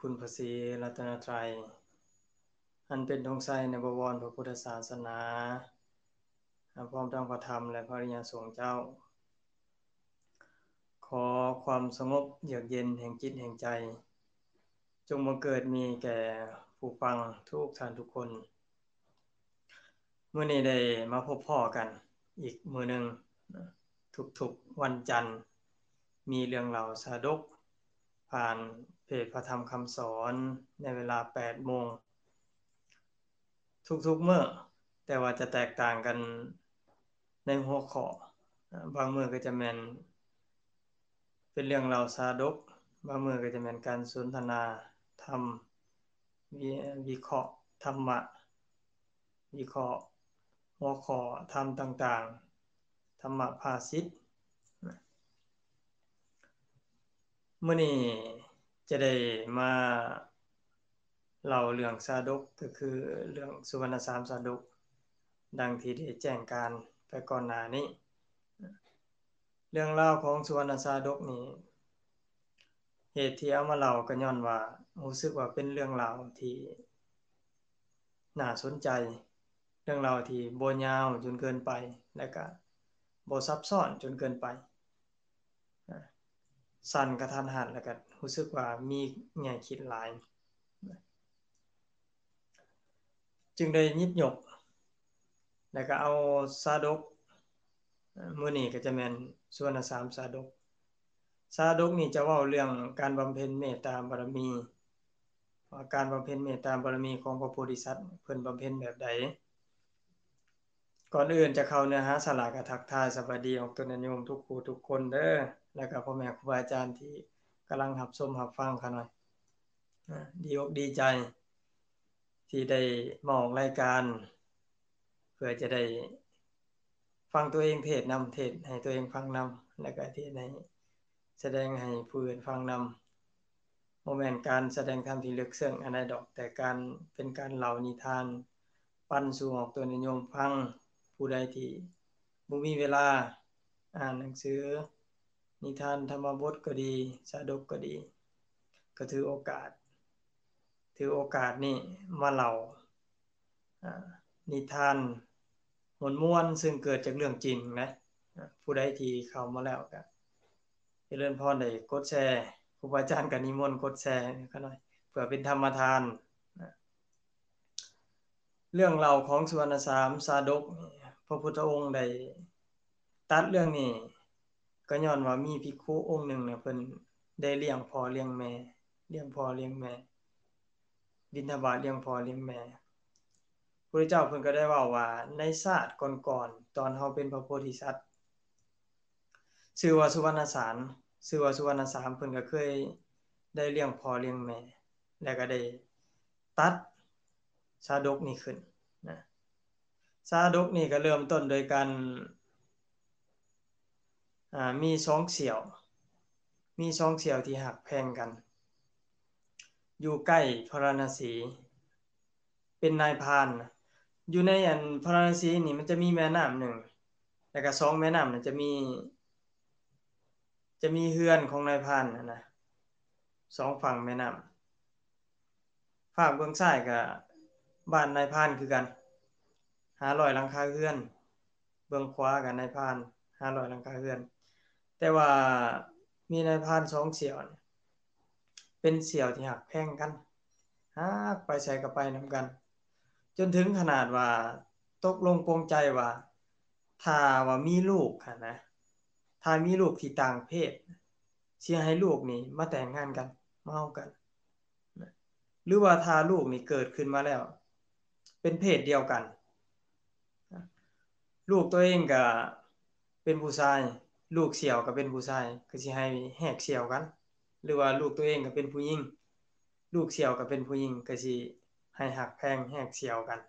ຄຸນພະສີລັດຕະນະໄຕ ອັນເປັນທອງໄຊໃນບະວອນພະພຸດທະສາສະໜາ ພ້ອມທັງພະທຳ ແລະ ພະອະລິຍະສົງເຈົ້າ. ຂໍຄວາມສະຫງົບເຢືອກເຢັນແຫ່ງຈິດແຫ່ງໃຈ ຈົ່ງບັງເກີດມີແກ່ຜູ້ຟັງທຸກທ່ານທຸກຄົນ. ມື້ນີ້ໄດ້ມາພົບພໍ້ກັນອີກມື້ໜຶ່ງ, ທຸກໆວັນຈັນມີເລື່ອງລາວຊາດົກ ຜ່ານເພຈພະທຳຄຳສອນ ໃນເວລາແປດໂມງ ທຸກໆມື້, ແຕ່ວ່າຈະແຕກຕ່າງກັນໃນຫົວຂໍ້. ບາງມື້ກໍຈະແມ່ນເປັນເລື່ອງລາວຊາດົກ, ບາງມື້ກໍຈະແມ່ນການສົນທະນາທຳ, ວິ ວິເຄາະທຳມະ, ວິເຄາະຫົວຂໍ້ທຳຕ່າງໆ, ທຳມະພາສິດ. ມື້ນີ້ຈະໄດ້ມາເລົ່າເລື່ອງຊາດົກ, ກໍຄືເລື່ອງສຸວັນນະສາມຊາດົກ, ດັ່ງທີ່ໄດ້ແຈ້ງການໄປກ່ອນໜ້ານີ້. ເລື່ອງລາວຂອງສຸວັນນະຊາດົກນີ້, ເຫດທີ່ເອົາມາເລົ່າກໍຍ້ອນວ່າຮູ້ສຶກວ່າເປັນເລື່ອງລາວທີ່ໜ້າສົນໃຈ, ເລື່ອງລາວທີ່ບໍ່ຍາວຈົນເກີນໄປ ແລະກະບໍ່ຊັບຊ້ອນຈົນເກີນໄປ, ສັ້ນກະທັນຫັນ ແລະກະຮູ້ສຶກວ່າມີແງ່ຄິດຫຼາຍ. ຈຶ່ງໄດ້ຫຍິບຍົກ ແລ້ວກໍເອົາຊາດົກ, ມື້ນີ້ກໍຈະແມ່ນສຸວັນນະສາມຊາດົກ. ຊາດົກນີ້ຈະເວົ້າເລື່ອງການບຳເພັນເມດຕາບາລະມີ, ວ່າການບຳເພັນເມດຕາບາລະມີຂອງພະໂພທິສັດ ເພິ່ນບຳເພັນແບບໃດ. ກ່ອນອື່ນຈະເຂົ້າເນື້ອຫາສາລະ ກໍທັກທາຍສະບາຍດີອອກຕົນຍາດໂຍມທຸກຜູ້ທຸກຄົນເດີ, ແລ້ວກໍພໍ່ແມ່ຄູບາອາຈານທີ່ກຳລັງຮັບຊົມຮັບຟັງຂ້ານ້ອຍ. ອາ ດີອົກດີໃຈທີ່ໄດ້ມາອອກລາຍການ ເພື່ອຈະໄດ້ຟັງຕົວເອງເທດນຳ, ເທດໃຫ້ຕົວເອງຟັງນຳ, ແລ້ວກໍເທດໃຫ້ ສະແດງໃຫ້ຜູ້ອື່ນຟັງນຳ. ບໍ່ແມ່ນການສະແດງທຳທີ່ເລິກເຊິ່ງອັນໃດດອກ, ແຕ່ການ ເປັນການເລົ່ານິທານ ປັນສູ່ອອກຕົນຍາດໂຍມຟັງ. ຜູ້ໃດທີ່ບໍ່ມີເວລາອ່ານໜັງສືນິທານທຳມະບົດກໍດີ, ຊາດົກກໍດີ, ກໍຖືໂອກາດ, ຖືໂອກາດນີ້ມາເລົ່າ ອາ ນິທານມ່ວນໆ ຊຶ່ງເກີດຈາກເລື່ອງຈິງນະ. ອາ ຜູ້ໃດທີ່ເຂົ້າມາແລ້ວກໍຈະເລີນພອນໄດ້ກົດແຊ, ຄູບາອາຈານກໍນິມົນກົດແຊຂ້ານ້ອຍ ເພື່ອເປັນທຳມະທານນະ. ເລື່ອງເລົ່າຂອງສຸວັນນະສາມຊາດົກນີ້ ພະພຸດທະອົງໄດ້ຕັດເລື່ອງນີ້ ກໍຍ້ອນວ່າມີພິກຂຸອົງໜຶ່ງນະ ເພິ່ນໄດ້ລ້ຽງພໍ່ລ້ຽງແມ່, ລ້ຽງພໍ່ລ້ຽງແມ່, ບິນທະບາດລ້ຽງພໍ່ລ້ຽງແມ່. ພະພຸດທະເຈົ້າເພິ່ນກໍໄດ້ເວົ້າວ່າ ໃນຊາດກ່ອນໆ ຕອນເຮົາເປັນພະໂພທິສັດ ຊື່ວ່າສຸວັນນະສາມ, ຊື່ວ່າສຸວັນນະສາມ ເພິ່ນກໍເຄີຍໄດ້ລ້ຽງພໍ່ລ້ຽງແມ່ ແລ້ວກໍໄດ້ຕັດຊາດົກນີ້ຂຶ້ນນະ. ຊາດົກນີ້ກໍເລີ່ມຕົ້ນໂດຍການ ອາ ມີສອງສ່ຽວ, ມີສອງສ່ຽວທີ່ຮັກແພງກັນ ຢູ່ໃກ້ພາລານະສີ ເປັນນາຍພານ. ຢູ່ໃນອັນພາລານະສີນີ້ ມັນຈະມີແມ່ນ້ຳໜຶ່ງ ແລ້ວກໍສອງແມ່ນ້ຳນັ້ນຈະມີ ຈະມີເຮືອນຂອງນາຍພານຫັ້ນນະ ສອງຝັ່ງແມ່ນ້ຳ. ຟາກເບື້ອງຊ້າຍກໍບ້ານນາຍພານຄືກັນ ຫ້າຮ້ອຍຫຼັງຄາເຮືອນ, ເບື້ອງຂວາກໍນາຍພານ ຫ້າຮ້ອຍຫຼັງຄາເຮືອນ. ແຕ່ວ່າມີນາຍພານສອງສ່ຽວ ເປັນສ່ຽວທີ່ຮັກແພງກັນ, ຫາກໄປໃສກໍໄປນຳກັນ, ຈົນເຖິງຂະໜາດວ່າຕົກລົງປົງໃຈວ່າ ຖ້າວ່າມີລູກຫັ້ນນະ, ຖ້າມີລູກທີ່ຕ່າງເພດ, ຊິໃຫ້ລູກນີ້ມາແຕ່ງງານກັນ, ມາເຮົາກັນ. ນະ ຫຼືວ່າຖ້າລູກນີ້ເກີດຂຶ້ນມາແລ້ວເປັນເພດດຽວກັນ, ລູກຕົວເອງກໍເປັນຜູ້ຊາຍ, ລູກສ່ຽວກໍເປັນຜູ້ຊາຍ, ກໍຊິໃຫ້ແຫກສ່ຽວກັນ. ຫຼືວ່າລູກຕົວເອງກໍເປັນຜູ້ຍິງ, ລູກສ່ຽວກໍເປັນຜູ້ຍິງ, ກໍຊິໃຫ້ຮັກແພງແຫກສ່ຽວກັນ,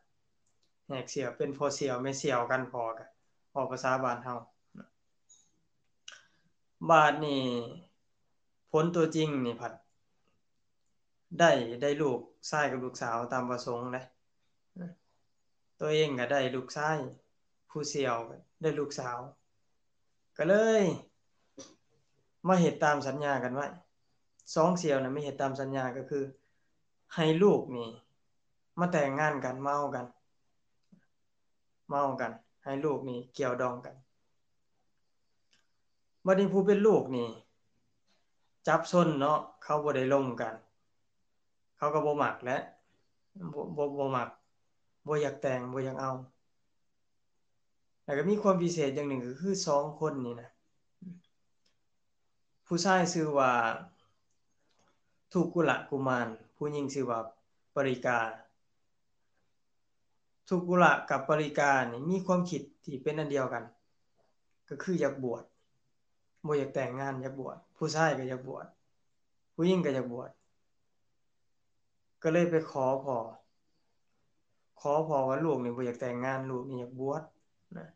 ແຫກສ່ຽວ ເປັນພໍ່ສ່ຽວແມ່ສ່ຽວກັນ, ພໍ່ກໍເວົ້າພາສາບ້ານເຮົາ. ບາດນີ້ຜົນຕົວຈິງນີ້ພັດ ໄດ້ ໄດ້ລູກຊາຍກັບລູກສາວຕາມປະສົງເດ້. ຕົວເອງກໍໄດ້ລູກຊາຍ, ຜູ້ສ່ຽວກໍໄດ້ລູກສາວ, ກໍເລີຍມາເຮັດຕາມສັນຍາກັນໄວ້. ສອງສ່ຽວນະ ມາເຮັດຕາມສັນຍາ, ກໍຄື ໃຫ້ລູກນີ້ມາແຕ່ງງານກັນ ມາເອົາກັນ ມາເອົາກັນ ໃຫ້ລູກນີ້ກ່ຽວດອງກັນ. ບັດນີ້ຜູ້ເປັນລູກນີ້ຈັບຊົນເນາະ ເຂົາບໍ່ໄດ້ລົມກັນ ເຂົາກໍບໍ່ມັກແຫຼະ ບໍ່ ບໍ່ ບໍ່ມັກ ບໍ່ຢາກແຕ່ງ ບໍ່ຢາກເອົາ. ແລ້ວກໍມີຄວາມພິເສດຢ່າງໜຶ່ງ ກໍຄືສອງຄົນນີ້ນະ ຜູ້ຊາຍຊື່ວ່າທຸກກຸລະກຸມານ ຜູ້ຍິງຊື່ວ່າປະລິກາ. ທຸກກຸລະກັບປະລິການີ້ມີຄວາມຄິດທີ່ເປັນອັນດຽວກັນ ກໍຄືຢາກບວດ ບໍ່ຢາກແຕ່ງງານ ຢາກບວດ ຜູ້ຊາຍກໍຢາກບວດ ຜູ້ຍິງກໍຢາກບວດ ກໍເລີຍໄປຂໍພໍ່ ຂໍພໍ່ວ່າລູກນີ້ບໍ່ຢາກແຕ່ງງານ ລູກນີ້ຢາກບວດນະ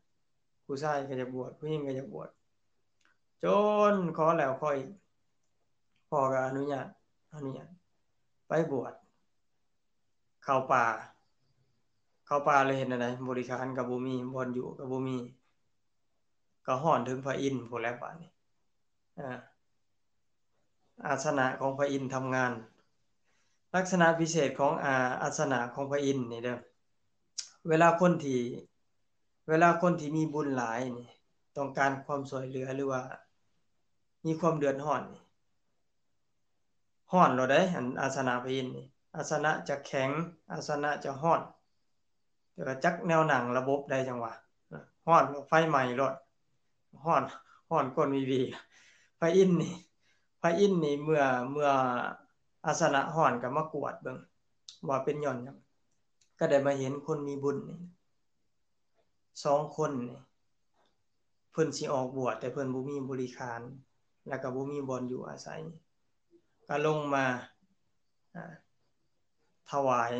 ຜູ້ຊາຍກໍຢາກບວດ ຜູ້ຍິງກໍຢາກບວດ ຈົນຂໍແລ້ວຂໍອີກ ພໍ່ກໍອະນຸຍາດ ອະນຸຍາດ ໄປບວດ ເຂົ້າປ່າ ເຂົ້າປ່າແລ້ວເຮັດແນວໃດ? ບໍລິຂານກໍບໍ່ມີ ບ່ອນຢູ່ກໍບໍ່ມີ ກໍຮ້ອນເຖິງພະອິນພຸ້ນແຫຼະບາດນີ້ ອາ ອາສະນະຂອງພະອິນທຳງານ. ລັກສະນະພິເສດຂອງ ອາ ອາສະນະຂອງພະອິນນີ້ເດີ ເວລາຄົນທີ່ ເວລາຄົນທີ່ມີບຸນຫຼາຍນີ້ ຕ້ອງການຄວາມຊ່ວຍເຫຼືອ ຫຼືວ່າມີຄວາມເດືອດຮ້ອນນີ້ ຮ້ອນໂລດເດ້ ອັນອາສະນະພະອິນນີ້ ອາສະນະຈະແຂງ ອາສະນະຈະຮ້ອນ ແຕ່ວ່າຈັກແນວໜັງລະບົບໃດຈັ່ງວ່າ ຮ້ອນ ໄຟໄໝ້ໂລດ ຮ້ອນ ຮ້ອນກົ້ນວີວີ. ພະອິນນີ້ ພະອິນນີ້ເມື່ອ ເມື່ອອາສະນະຮ້ອນກໍມາກວດເບິ່ງວ່າເປັນຍ້ອນຫຍັງ ກໍໄດ້ມາເຫັນຄົນມີບຸນນີ້ ສອງຄົນນີ້ ເພິ່ນຊິອອກບວດ ແຕ່ເພິ່ນບໍ່ມີບໍລິຂານ ແລ້ວກໍບໍ່ມີບ່ອນຢູ່ອາໄສ ກໍລົງມາ ອາ ຖວາຍ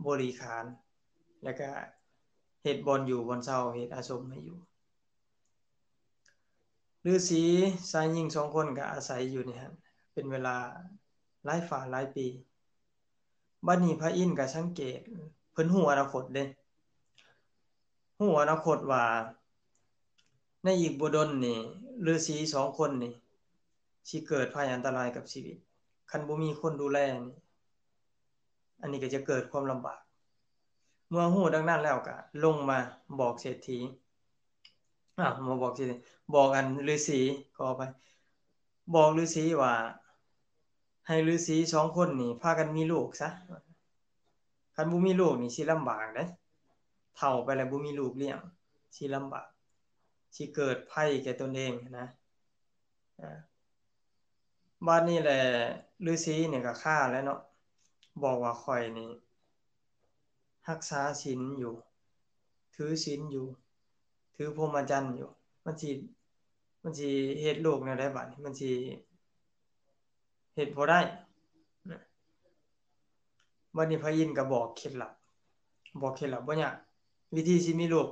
ບໍລິຂານ ແລ້ວກໍເຮັດບ່ອນຢູ່ບ່ອນເຊົາ ເຮັດອາສົມໃຫ້ຢູ່. ລືສີຊາຍຍິງສອງຄົນກໍອາໄສຢູ່ໃນຫັ້ນເປັນເວລາຫຼາຍຝາຫຼາຍປີ. ບັດນີ້ພະອິນກໍສັງເກດ ເພິ່ນຮູ້ອະນາຄົດເດ້ ຮູ້ອະນາຄົດວ່າໃນອີກບໍ່ດົນນີ້ ລືສີສອງຄົນນີ້ຊິເກີດໄພອັນຕະລາຍກັບຊີວິດ ຄັນບໍ່ມີຄົນດູແລນີ້ ອັນນີ້ກໍຈະເກີດຄວາມລຳບາກ. ເມື່ອຮູ້ດັ່ງນັ້ນແລ້ວກໍລົງມາບອກເສດຖີ ອາ ມາບອກເສດຖີ ບອກອັນລືສີ ຂໍອະໄພ ບອກລືສີວ່າ ໃຫ້ລືສີສອງຄົນນີ້ພາກັນມີລູກຊະ ຄັນບໍ່ມີລູກນີ້ຊິລຳບາກເດ້ ເຖົ້າໄປແລ້ວບໍ່ມີລູກລ້ຽງ ຊິລຳບາກ ຊິເກີດໄພແກ່ຕົນເອງນະ. ອາ ບາດນີ້ແຫຼະ ລືສີນີ້ກໍຄາແລ້ວເນາະ ບອກວ່າຂ້ອຍນີ້ຮັກສາສິນຢູ່ ຖືສິນຢູ່ ຖືພົມມະຈັນຢູ່ ມັນຊິ ມັນຊິເຮັດລູກແນວໃດບາດນີ້ ມັນຊິເຮັດບໍ່ໄດ້ນະ. ບັດນີ້ພະອິນກໍບອກເຄັດລັບ ບອກເຄັດລັບບໍ່ຍາກ ວິທີຊິມີລູກ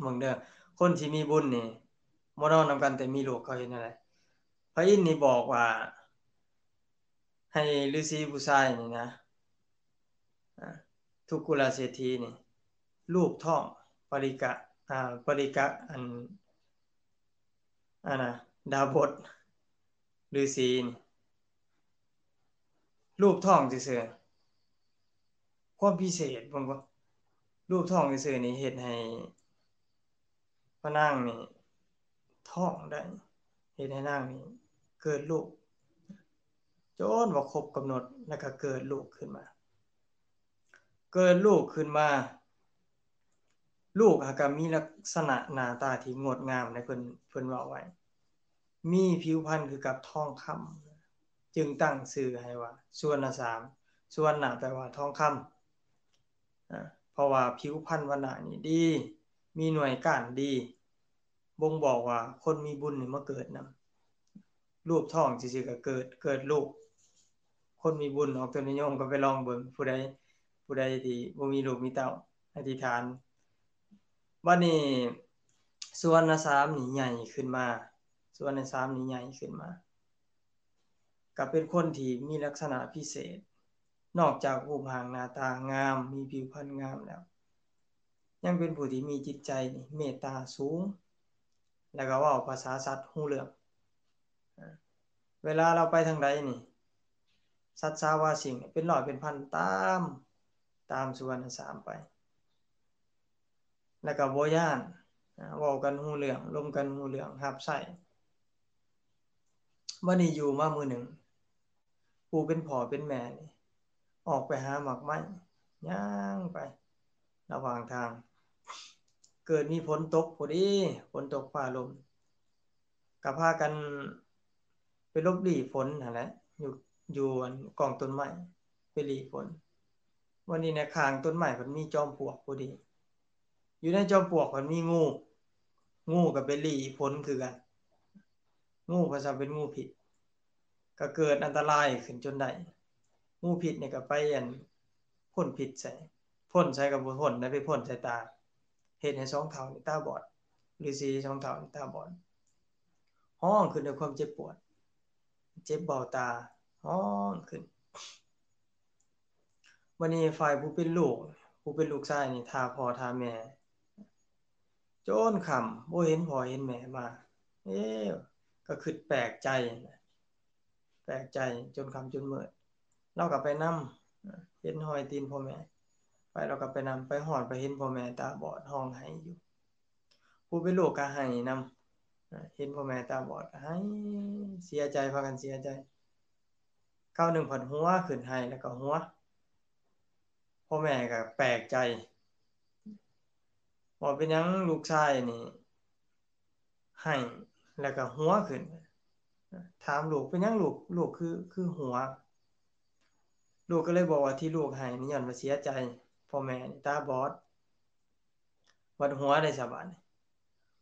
ເບິ່ງເດີ ຄົນທີ່ມີບຸນນີ້ບໍ່ນອນນຳກັນແຕ່ມີລູກ ເຂົາເຮັດແນວໃດ? ພະອິນນີ້ບອກວ່າ ໃຫ້ລືສີຜູ້ຊາຍນີ້ນະ ອາ ທຸກກຸລະເສດຖີນີ້ ລູບທ້ອງປະລິກະ ອາ ປະລິກະ ອັນ ອັນນະ ດາບົດ ລືສີນີ້ ລູບທ້ອງຊື່ໆ ຄວາມພິເສດເບິ່ງບໍ່ ລູບທ້ອງຊື່ໆນີ້ເຮັດໃຫ້ພະນາງນີ້ທ້ອງໄດ້ ເຮັດໃຫ້ນາງນີ້ເກີດລູກ ຈົນວ່າຄົບກຳນົດ ແລ້ວກໍເກີດລູກຂຶ້ນມາ ເກີດລູກຂຶ້ນມາ ລູກຫາກະມີລັກສະນະໜ້າຕາທີ່ງົດງາມໃດ ເພິ່ນ ເພິ່ນເວົ້າໄວ້ ມີຜິວພັນຄືກັບທອງຄຳ ຈຶ່ງຕັ້ງຊື່ໃຫ້ວ່າສຸວັນນະສາມ ສຸວັນນະແປວ່າທອງຄຳ ອາ ເພາະວ່າຜິວພັນວັນນະນີ້ດີ ມີໜ່ວຍກ້ານດີ ບົ່ງບອກວ່າຄົນມີບຸນນີ້ມາເກີດນຳ ລູບທ້ອງຊື່ໆກໍເກີດ ເກີດລູກ ຄົນມີບຸນ ອອກຕົນນິຍົມກໍໄປລອງເບິ່ງ ຜູ້ໃດ ຜູ້ໃດທີ່ບໍ່ມີລູກມີເຕົ້າ ອະທິຖານ. ບັດນີ້ສຸວັນນະສາມນີ້ໃຫຍ່ຂຶ້ນມາ ສຸວັນນະສາມນີ້ໃຫຍ່ຂຶ້ນມາ ກໍເປັນຄົນທີ່ມີລັກສະນະພິເສດ ນອກຈາກຮູບຮ່າງໜ້າຕາງາມ ມີຜິວພັນງາມແລ້ວ ຍັງເປັນຜູ້ທີ່ມີຈິດໃຈນີ້ເມດຕາສູງ ແລ້ວກໍເວົ້າພາສາສັດຮູ້ເລື່ອງ ເວລາລາວໄປທາງໃດນີ້ ສັດສາວາສິ່ງເປັນຮ້ອຍເປັນພັນຕາມ ຕາມສຸວັນນະສາມໄປ ແລ້ວກໍບໍ່ຢ້ານ ເວົ້າກັນຮູ້ເລື່ອງ ລົມກັນຮູ້ເລື່ອງ ຮັບໃຊ້. ບັດນີ້ຢູ່ມາມື້ໜຶ່ງ ຜູ້ເປັນພໍ່ເປັນແມ່ນີ້ອອກໄປຫາໝາກໄມ້ ຍ່າງໄປລະຫວ່າງທາງ ເກີດມີຝົນຕົກພໍດີ ຝົນຕົກຟ້າລົມ ກໍພາກັນໄປຫຼົບຫຼີ່ຝົນຫັ້ນແຫຼະ ຢູ່ ຢູ່ອັນກອງຕົ້ນໄມ້ ໄປຫຼີ່ຝົນ. ວັນນີ້ໃນຂ້າງຕົ້ນໄມ້ເພິ່ນມີຈອມປວກພໍດີ ຢູ່ໃນຈອມປວກເພິ່ນມີງູ ງູກໍໄປຫຼີ່ຝົນຄືກັນ ງູເພິ່ນວ່າເປັນງູພິດ ກໍເກີດອັນຕະລາຍຂຶ້ນຈົນໄດ້. ງູພິດນີ້ກໍໄປອັນ ພົ່ນພິດໃສ່ ພົ່ນໃສ່ກໍບໍ່ພົ່ນໄດ້ ໄປພົ່ນໃສ່ຕາ ເຮັດໃຫ້ສອງເຖົ້ານີ້ຕາບອດ ລືສີສອງເຖົ້ານີ້ຕາບອດ ຮ້ອງຂຶ້ນດ້ວຍຄວາມເຈັບປວດ ເຈັບເບົາຕາ ຮ້ອງຂຶ້ນ. ບັດນີ້ຝ່າຍຜູ້ເປັນລູກ ຜູ້ເປັນລູກຊາຍນີ້ຖ້າພໍ່ຖ້າແມ່ ຈົນຄ່ຳບໍ່ເຫັນພໍ່ເຫັນແມ່ມາ ເອ ກໍຄິດແປກໃຈ ແປກໃຈຈົນຄ່ຳຈົນມືດ ລາວກໍໄປນຳ ເຫັນຮອຍຕີນພໍ່ແມ່ ໄປ ລາວກໍໄປນຳ ໄປຮອດໄປເຫັນພໍ່ແມ່ຕາບອດຮ້ອງໄຫ້ຢູ່ ຜູ້ເປັນລູກກໍໄຫ້ນຳ ເຫັນພໍ່ແມ່ຕາບອດກໍໄຫ້ ເສຍໃຈ ພາກັນເສຍໃຈ ຄາວໜຶ່ງພັດຫົວຂຶ້ນ ໄຫ້ແລ້ວກໍຫົວ ພໍ່ແມ່ກໍແປກໃຈ ວ່າເປັນຫຍັງລູກຊາຍນີ້ໄຫ້ແລ້ວກໍຫົວຂຶ້ນ ຖາມລູກ ເປັນຫຍັງລູກ ລູກຄື ຄືຫົວ? ລູກກໍເລີຍບອກວ່າທີ່ລູກໄຫ້ນີ້ຍ້ອນວ່າເສຍໃຈ ພໍ່ແມ່ນີ້ຕາບອດ ບັດຫົວໄດ້ສະບາດນີ້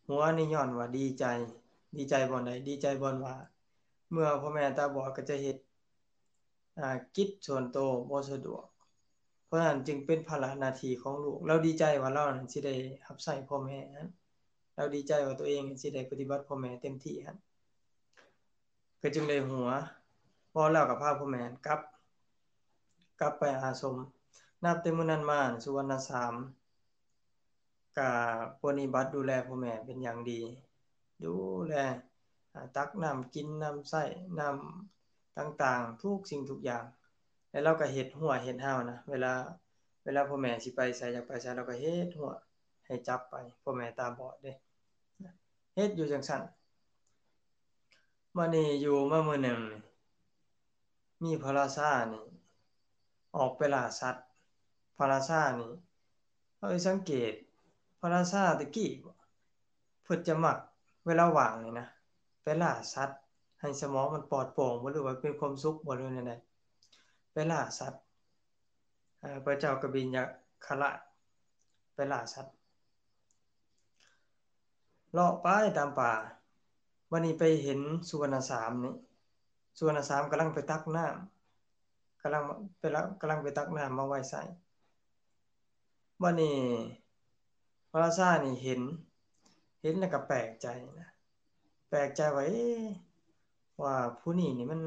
ຫົວນີ້ຍ້ອນວ່າດີໃຈ ດີໃຈບ່ອນໃດ? ດີໃຈບ່ອນວ່າ ເມື່ອພໍ່ແມ່ຕາບອດກໍຈະເຮັດ ອາ ກິດສ່ວນໂຕບໍ່ສະດວກ ເພາະນັ້ນຈຶ່ງເປັນພາລະໜ້າທີ່ຂອງລູກ ລາວດີໃຈວ່າລາວນັ້ນຊິໄດ້ຮັບໃຊ້ພໍ່ແມ່ຫັ້ນ ລາວດີໃຈວ່າຕົວເອງຊິໄດ້ປະຕິບັດພໍ່ແມ່ເຕັມທີ່ຫັ້ນ ກໍຈຶ່ງໄດ້ຫົວ ເວົ້າແລ້ວກໍພາພໍ່ແມ່ກັບ ກັບໄປອາສົມ. ນັບແຕ່ມື້ນັ້ນມາ ສຸວັນນະສາມ ກະປະນິບັດດູແລພໍ່ແມ່ເປັນຢ່າງດີ ດູແລ ອາ ຕັກນ້ຳກິນ ນ້ຳໃຊ້ ນ້ຳຕ່າງໆ ທຸກສິ່ງທຸກຢ່າງ ແລ້ວລາວກໍເຮັດຮົ້ວເຮັດຮາວນະ ເວລາ ເວລາພໍ່ແມ່ຊິໄປໃສ ຢາກໄປໃສ ລາວກໍເຮັດຮົ້ວໃຫ້ຈັບໄປ ພໍ່ແມ່ຕາບອດເດ້ ເຮັດຢູ່ຈັ່ງຊັ້ນ. ມານີ້ຢູ່ມາມື້ໜຶ່ງ ມີພະລາຊານີ້ອອກໄປລ່າສັດ ພະລາຊານີ້ ເຮົາໄປສັງເກດ ພະລາຊາແຕ່ກີ້ ເພິ່ນຈະມັກເວລາວ່າງນີ້ນະ ໄປລ່າສັດ ໃຫ້ສະໝອງມັນປອດໂປ່ງບໍ່ ຫຼືວ່າເປັນຄວາມສຸກບໍ່ ຫຼືແນວໃດ ໄປລ່າສັດ ເອີ ພະເຈົ້າກະບິນຍະຄະລາດ ໄປລ່າສັດ ເລາະໄປຕາມປ່າ ບັດນີ້ໄປເຫັນສຸວັນນະສາມນີ້ ສຸວັນນະສາມກຳລັງໄປຕັກນ້ຳ ກຳລັງໄປ ກຳລັງໄປຕັກນ້ຳມາໄວ້ໃສ່ ບັດນີ້ພະລາຊານີ້ເຫັນ ເຫັນແລ້ວກໍແປກໃຈນະ ແປກໃຈວ່າ ເອ ວ່າຜູ້ນີ້ນີ້ມັນ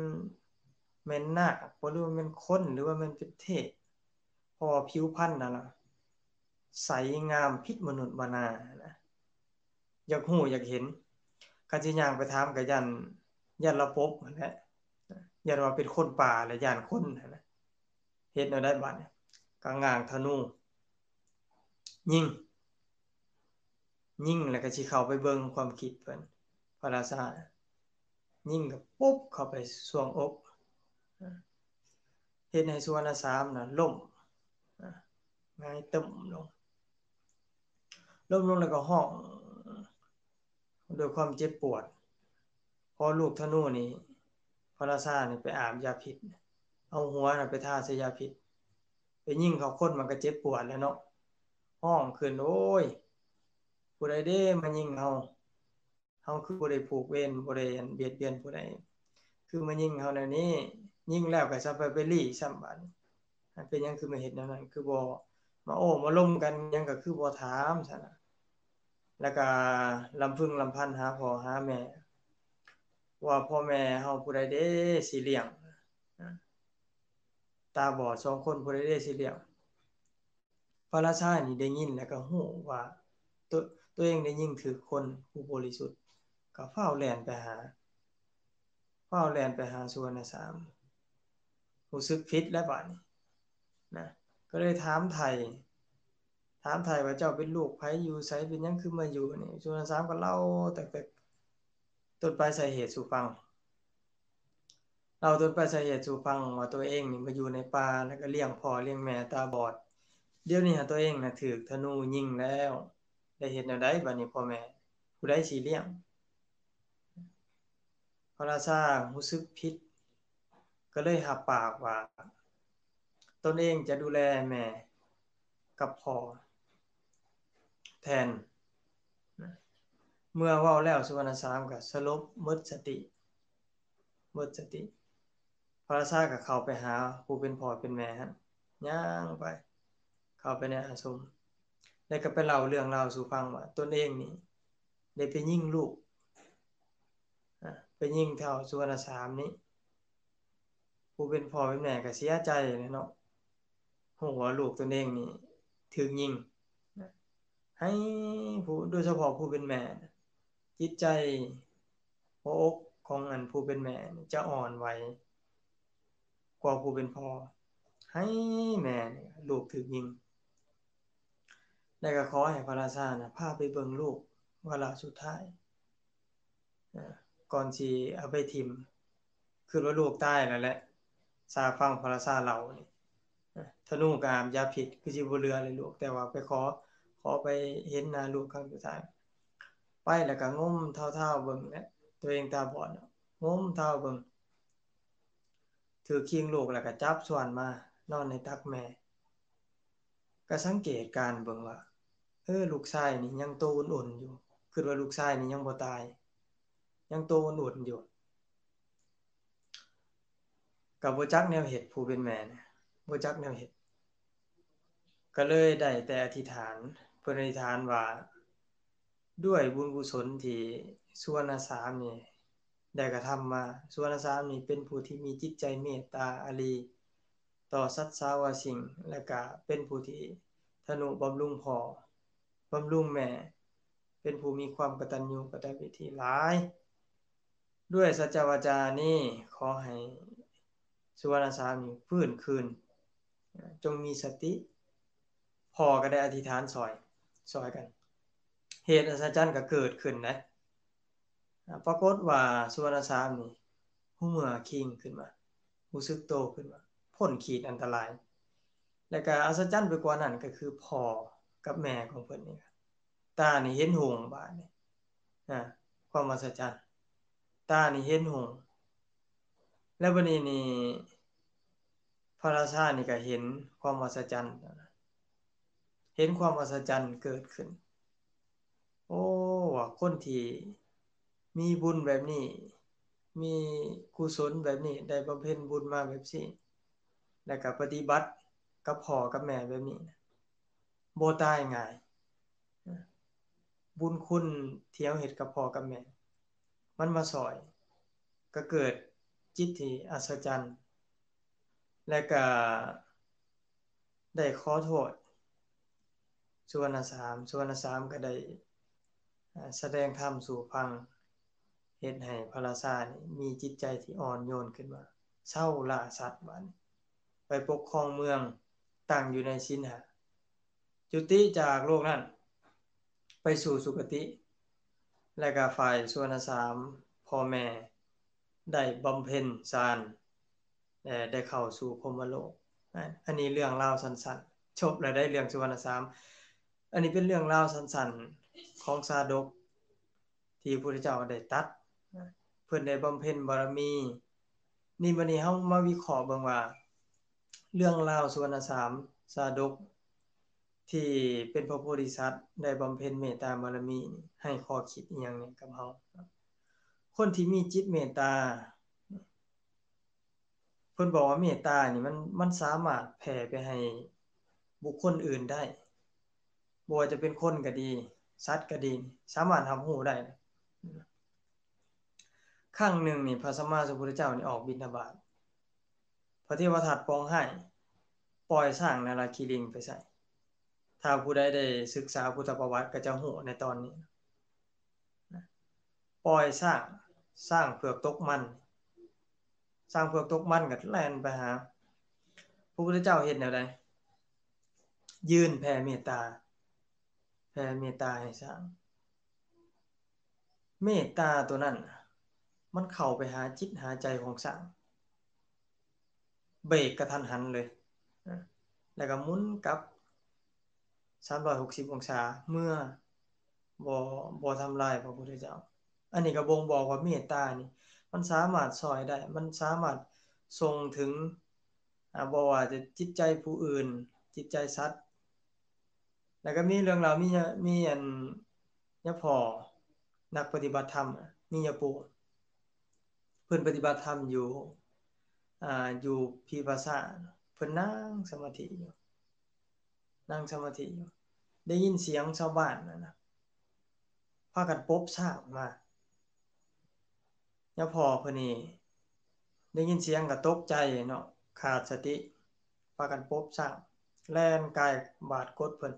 ແມ່ນນາກບໍ່ ຫຼືວ່າແມ່ນຄົນ ຫຼືວ່າແມ່ນເປັນເທບ ເພາະວ່າຜິວພັນຫັ້ນນະ ໃສງາມຜິດມະນຸດມະນານະ ຢາກຮູ້ຢາກເຫັນ ຄັນຊິຍ່າງໄປຖາມກໍຢ້ານ ຢ້ານລາວປົບຫັ້ນແຫຼະ ຢ້ານວ່າເປັນຄົນປ່າ ແລະ ຢ້ານຄົນຫັ້ນນະ ເຮັດແນວໃດບາດນີ້ ກໍຫງ່າງທະນູ ຍິງ ຍິງແລ້ວກໍຊິເຂົ້າໄປເບິ່ງ ຄວາມຄິດເພິ່ນ ພະລາຊາ ຍິງກໍປຸບເຂົ້າໄປຊ່ວງອົກ ເຮັດໃຫ້ສຸວັນນະສາມນະລົ້ມ ຫງາຍຕຶ້ມລົງ ລົ້ມລົງແລ້ວກໍຮ້ອງດ້ວຍຄວາມເຈັບປວດ ເພາະລູກທະນູນີ້ ພະລາຊານີ້ໄປອາບຢາພິດ ເອົາຫົວນະໄປທາໃສ່ຢາພິດ ໄປຍິງເຂົ້າຄົນມັນກໍເຈັບປວດແລ້ວເນາະ ຮ້ອງຂຶ້ນ ໂອ້ຍ ຜູ້ໃດເດ້ມາຍິງເຮົາ ເຮົາຄືບໍ່ໄດ້ຜູກເວນ ບໍ່ໄດ້ ອັນ ບຽດບຽນຜູ້ໃດ ຄືມາຍິງເຮົາແນວນີ້ ຍິງແລ້ວກໍຊະໄປ ໄປລີ້ຊ້ຳບາດນີ້ ເປັນຫຍັງຄືມາເຮັດແນວນັ້ນ ຄືບໍ່ມາໂອ້ມາລົມກັນຫຍັງ ກໍຄືບໍ່ຖາມຊັ້ນນະ ແລ້ວກໍລຳພຶງລຳພັນຫາພໍ່ຫາແມ່ ວ່າພໍ່ແມ່ເຮົາຜູ້ໃດເດ້ຊິລ້ຽງ ຕາບອດສອງຄົນ ຜູ້ໃດເດ້ຊິລ້ຽງ ພະລາຊານີ້ໄດ້ຍິນແລ້ວກໍຮູ້ວ່າ ໂຕ ໂຕເອງໄດ້ຍິງຖືກຄົນຜູ້ບໍລິສຸດ ກໍຟ້າວແລ່ນໄປຫາ ຟ້າວແລ່ນໄປຫາສຸວັນນະສາມ ຮູ້ສຶກຜິດແລ້ວບາດນີ້ນະ ກໍເລີຍຖາມໄຖ່ ຖາມໄຖ່ວ່າ ເຈົ້າເປັນລູກໃຜ ຢູ່ໃສ ເປັນຫຍັງຄືມາຢູ່ນີ້? ສຸວັນນະສາມກໍເລົ່າຕັ້ງແຕ່ຕົ້ນປາຍສາເຫດສູ່ຟັງ ເລົ່າຕົ້ນປາຍສາເຫດສູ່ຟັງວ່າ ຕົວເອງນີ້ມາຢູ່ໃນປ່າ ແລ້ວກໍລ້ຽງພໍ່ລ້ຽງແມ່ຕາບອດ ດຽວນີ້ຫາຕົວເອງນະຖືກທະນູຍິງແລ້ວ ໄດ້ເຮັດແນວໃດບາດນີ້ ພໍ່ແມ່ ຜູ້ໃດຊິລ້ຽງ? ພະລາຊາຮູ້ສຶກຜິດ ກໍເລີຍຮັບປາກວ່າ ຕົນເອງຈະດູແລແມ່ກັບພໍ່ແທນ. ເມື່ອເວົ້າແລ້ວ ສຸວັນນະສາມກໍສະຫຼົບໝົດສະຕິ ໝົດສະຕິ. ພະລາຊາກໍເຂົ້າໄປຫາຜູ້ເປັນພໍ່ເປັນແມ່ຫັ້ນ ຍ່າງໄປ ເຂົ້າໄປໃນອາສົມ ແລ້ວກໍໄປເລົ່າເລື່ອງລາວສູ່ຟັງວ່າ ຕົນເອງນີ້ໄດ້ໄປຍິງລູກ ອາ ໄປຍິງທ້າວສຸວັນນະສາມນີ້. ຜູ້ເປັນພໍ່ເປັນແມ່ກໍເສຍໃຈແຫຼະເນາະ ຮູ້ວ່າລູກຕົນເອງນີ້ຖືກຍິງ. ໃຫ້ຜູ້ ໂດຍສະເພາະຜູ້ເປັນແມ່ ຈິດໃຈຫົວອົກຂອງອັນຜູ້ເປັນແມ່ນີ້ຈະອ່ອນໄຫວກວ່າຜູ້ເປັນພໍ່ ໃຫ້ແມ່ນີ້ ລູກຖືກຍິງ ແລ້ວກໍຂໍໃຫ້ພະລາຊານະ ພາໄປເບິ່ງລູກວາລະສຸດທ້າຍ ເອີ ກ່ອນຊິເອົາໄປຖິ້ມ ຄິດວ່າລູກຕາຍແລ້ວແຫຼະ ຊາຟັງພະລາຊາເລົ່ານີ້ ເອີ ທະນູກໍອາບຢາພິດ ຄືຊິບໍ່ເຫຼືອເລີຍລູກ ແຕ່ວ່າໄປຂໍ ຂໍໄປເຫັນໜ້າລູກຄັ້ງສຸດທ້າຍ. ໄປແລ້ວກໍງົມທ້າວໆເບິ່ງແຫຼະ ຕົວເອງຕາບອດເນາະ ງົມທ້າວເບິ່ງ ຖືກຄີງລູກແລ້ວກໍຈັບສ່ວນມານອນໃນຕັກແມ່ ກໍສັງເກດການເບິ່ງວ່າ ເອີ ລູກຊາຍນີ້ຍັງໂຕອຸ່ນໆຢູ່ ຄິດວ່າລູກຊາຍນີ້ຍັງບໍ່ຕາຍ ຍັງໂຕອຸ່ນໆຢູ່ ກໍບໍ່ຈັກແນວເຮັດ ຜູ້ເປັນແມ່ນະ ບໍ່ຈັກແນວເຮັດ ກໍເລີຍໄດ້ແຕ່ອະທິຖານ ເພິ່ນອະທິຖານວ່າ ດ້ວຍບຸນກຸສົນທີ່ສຸວັນນະສາມນີ້ໄດ້ກະທຳມາ ສຸວັນນະສາມນີ້ເປັນຜູ້ທີ່ມີຈິດໃຈເມດຕາອາລີຕໍ່ສັດສາວະສິ່ງ ແລະກະເປັນຜູ້ທີ່ທະນຸບຳລຸງພໍ່ ບຳລຸງແມ່ ເປັນຜູ້ມີຄວາມກະຕັນຍູກະຕະເວທີຫຼາຍ. ດ້ວຍສັດຈະວາຈານີ້ ຂໍໃຫ້ສຸວັນນະສາມນີ້ຟື້ນຄືນ ຈົ່ງມີສະຕິ. ພໍ່ກໍໄດ້ອະທິຖານຊ່ອຍ ຊ່ອຍກັນ ເຫດອັດສະຈັນກໍເກີດຂຶ້ນນະ. ປາກົດວ່າສຸວັນນະສາມນີ້ຮູ້ເມື່ອຄີງຂຶ້ນມາ ຮູ້ສຶກໂຕຂຶ້ນມາ ພົ້ນຂີດອັນຕະລາຍ ແລະກະອັດສະຈັນໄປກວ່ານັ້ນກໍຄືພໍ່ກັບແມ່ຂອງເພິ່ນນີ້ ຕານີ້ເຫັນຮຸ່ງບາດນີ້ ອາ ຄວາມອັດສະຈັນ ຕານີ້ເຫັນຮຸ່ງ ແລ້ວບັດນີ້ນີ້ ພະລາຊານີ້ກໍເຫັນຄວາມອັດສະຈັນ ເຫັນຄວາມອັດສະຈັນເກີດຂຶ້ນ. ໂອ້ ວ່າຄົນທີ່ມີບຸນແບບນີ້ ມີກຸສົນແບບນີ້ ໄດ້ບຳເພັນບຸນມາແບບນີ້ ແລ້ວກໍປະຕິບັດກັບພໍ່ກັບແມ່ແບບນີ້ ບໍ່ຕາຍງ່າຍ. ບຸນຄຸນທີ່ເຮົາເຮັດກັບພໍ່ກັບແມ່ ມັນມາຊ່ອຍ ກໍເກີດຈິດທີ່ອັດສະຈັນ ແລະກະໄດ້ຂໍໂທດສຸວັນນະສາມ ສຸວັນນະສາມກໍໄດ້ ອາ ສະແດງທຳສູ່ຟັງ ເຮັດໃຫ້ພະລາຊານີ້ມີຈິດໃຈທີ່ອ່ອນໂຍນຂຶ້ນມາ ເຊົາລ່າສັດບາດນີ້ ໄປປົກຄອງເມືອງ ຕັ້ງຢູ່ໃນສິນຫ້າ ຈຸຕິຈາກໂລກນັ້ນໄປສູ່ສຸຄະຕິ ແລະກະຝ່າຍສຸວັນນະສາມ ພໍ່ແມ່ໄດ້ບຳເພັນສານ ແລະໄດ້ເຂົ້າສູ່ພົມມະໂລກ. ອັນນີ້ເລື່ອງລາວສັ້ນໆ ຈົບແລ້ວໄດ໋ ເລື່ອງສຸວັນນະສາມ. ອັນນີ້ເປັນເລື່ອງລາວສັ້ນໆຂອງຊາດົກ ທີ່ພະພຸດທະເຈົ້າໄດ້ຕັດ ເພິ່ນໄດ້ບຳເພັນບາລະມີ. ນີ້ ບັດນີ້ເຮົາມາວິເຄາະເບິ່ງວ່າ ເລື່ອງລາວສຸວັນນະສາມ ຊາດົກ ທີ່ເປັນພະໂພທິສັດ ໄດ້ບຳເພັນເມດຕາບາລະມີ ໃຫ້ຂໍ້ຄິດອີ່ຫຍັງແດ່ກັບເຮົາ? ຄົນທີ່ມີຈິດເມດຕາ ເພິ່ນບອກວ່າເມດຕານີ້ ມັນ ມັນສາມາດແຜ່ໄປໃຫ້ບຸກຄົນອື່ນໄດ້ ບໍ່ວ່າຈະເປັນຄົນກໍດີ ສັດກໍດີ ສາມາດຮັບຮູ້ໄດ້. ຄັ້ງໜຶ່ງນີ້ ພະສຳມາສຳພຸດທະເຈົ້ານີ້ອອກບິນທະບາດ ພະເທວະທັດປອງຮ້າຍ ປ່ອຍຊ້າງນາລາຄີລິງໄປໃສ່. ຖ້າຜູ້ໃດໄດ້ສຶກສາພຸດທະປະຫວັດກໍຈະຮູ້ໃນຕອນນີ້. ປ່ອຍຊ້າງ ຊ້າງເຜືອກຕົກມັນ ຊ້າງເຜືອກຕົກມັນກໍແລ່ນໄປຫາ ພະພຸດທະເຈົ້າເຮັດແນວໃດ? ຍື່ນແຜ່ເມດຕາ ແຜ່ເມດຕາໃຫ້ຊ້າງ. ເມດຕາໂຕນັ້ນ ມັນເຂົ້າໄປຫາຈິດຫາໃຈຂອງຊ້າງ ເບຣກກະທັນຫັນເລີຍ ແລ້ວກໍໝູນກັບສາມຮ້ອຍຫົກສິບອົງສາ ເມື່ອ ບໍ່ ບໍ່ທຳລາຍພະພຸດທະເຈົ້າ. ອັນນີ້ກໍບົ່ງບອກວ່າເມດຕານີ້ ມັນສາມາດຊ່ອຍໄດ້ ມັນສາມາດສົ່ງເຖິງ ອາ ບໍ່ວ່າຈະຈິດໃຈຜູ້ອື່ນ ຈິດໃຈສັດ. ແລ້ວກໍມີເລື່ອງລາວ ມີຍາ ມີອັນຍາພໍ່ນັກປະຕິບັດທຳ ມີຍາປູ່ ເພິ່ນປະຕິບັດທຳຢູ່ ອາ ຢູ່ພີພາສາ ເພິ່ນນັ່ງສະມາທິຢູ່ ນັ່ງສະມາທິຢູ່ ໄດ້ຍິນສຽງຊາວບ້ານນັ້ນນະ ພາກັນປົບຊ້າງມາ. ຍາພໍ່ເພິ່ນນີ້ໄດ້ຍິນສຽງກໍຕົກໃຈເນາະ ຂາດສະຕິ ພາກັນປົບຊ້າງ ແລ່ນກາຍບາດກົດເພິ່ນ.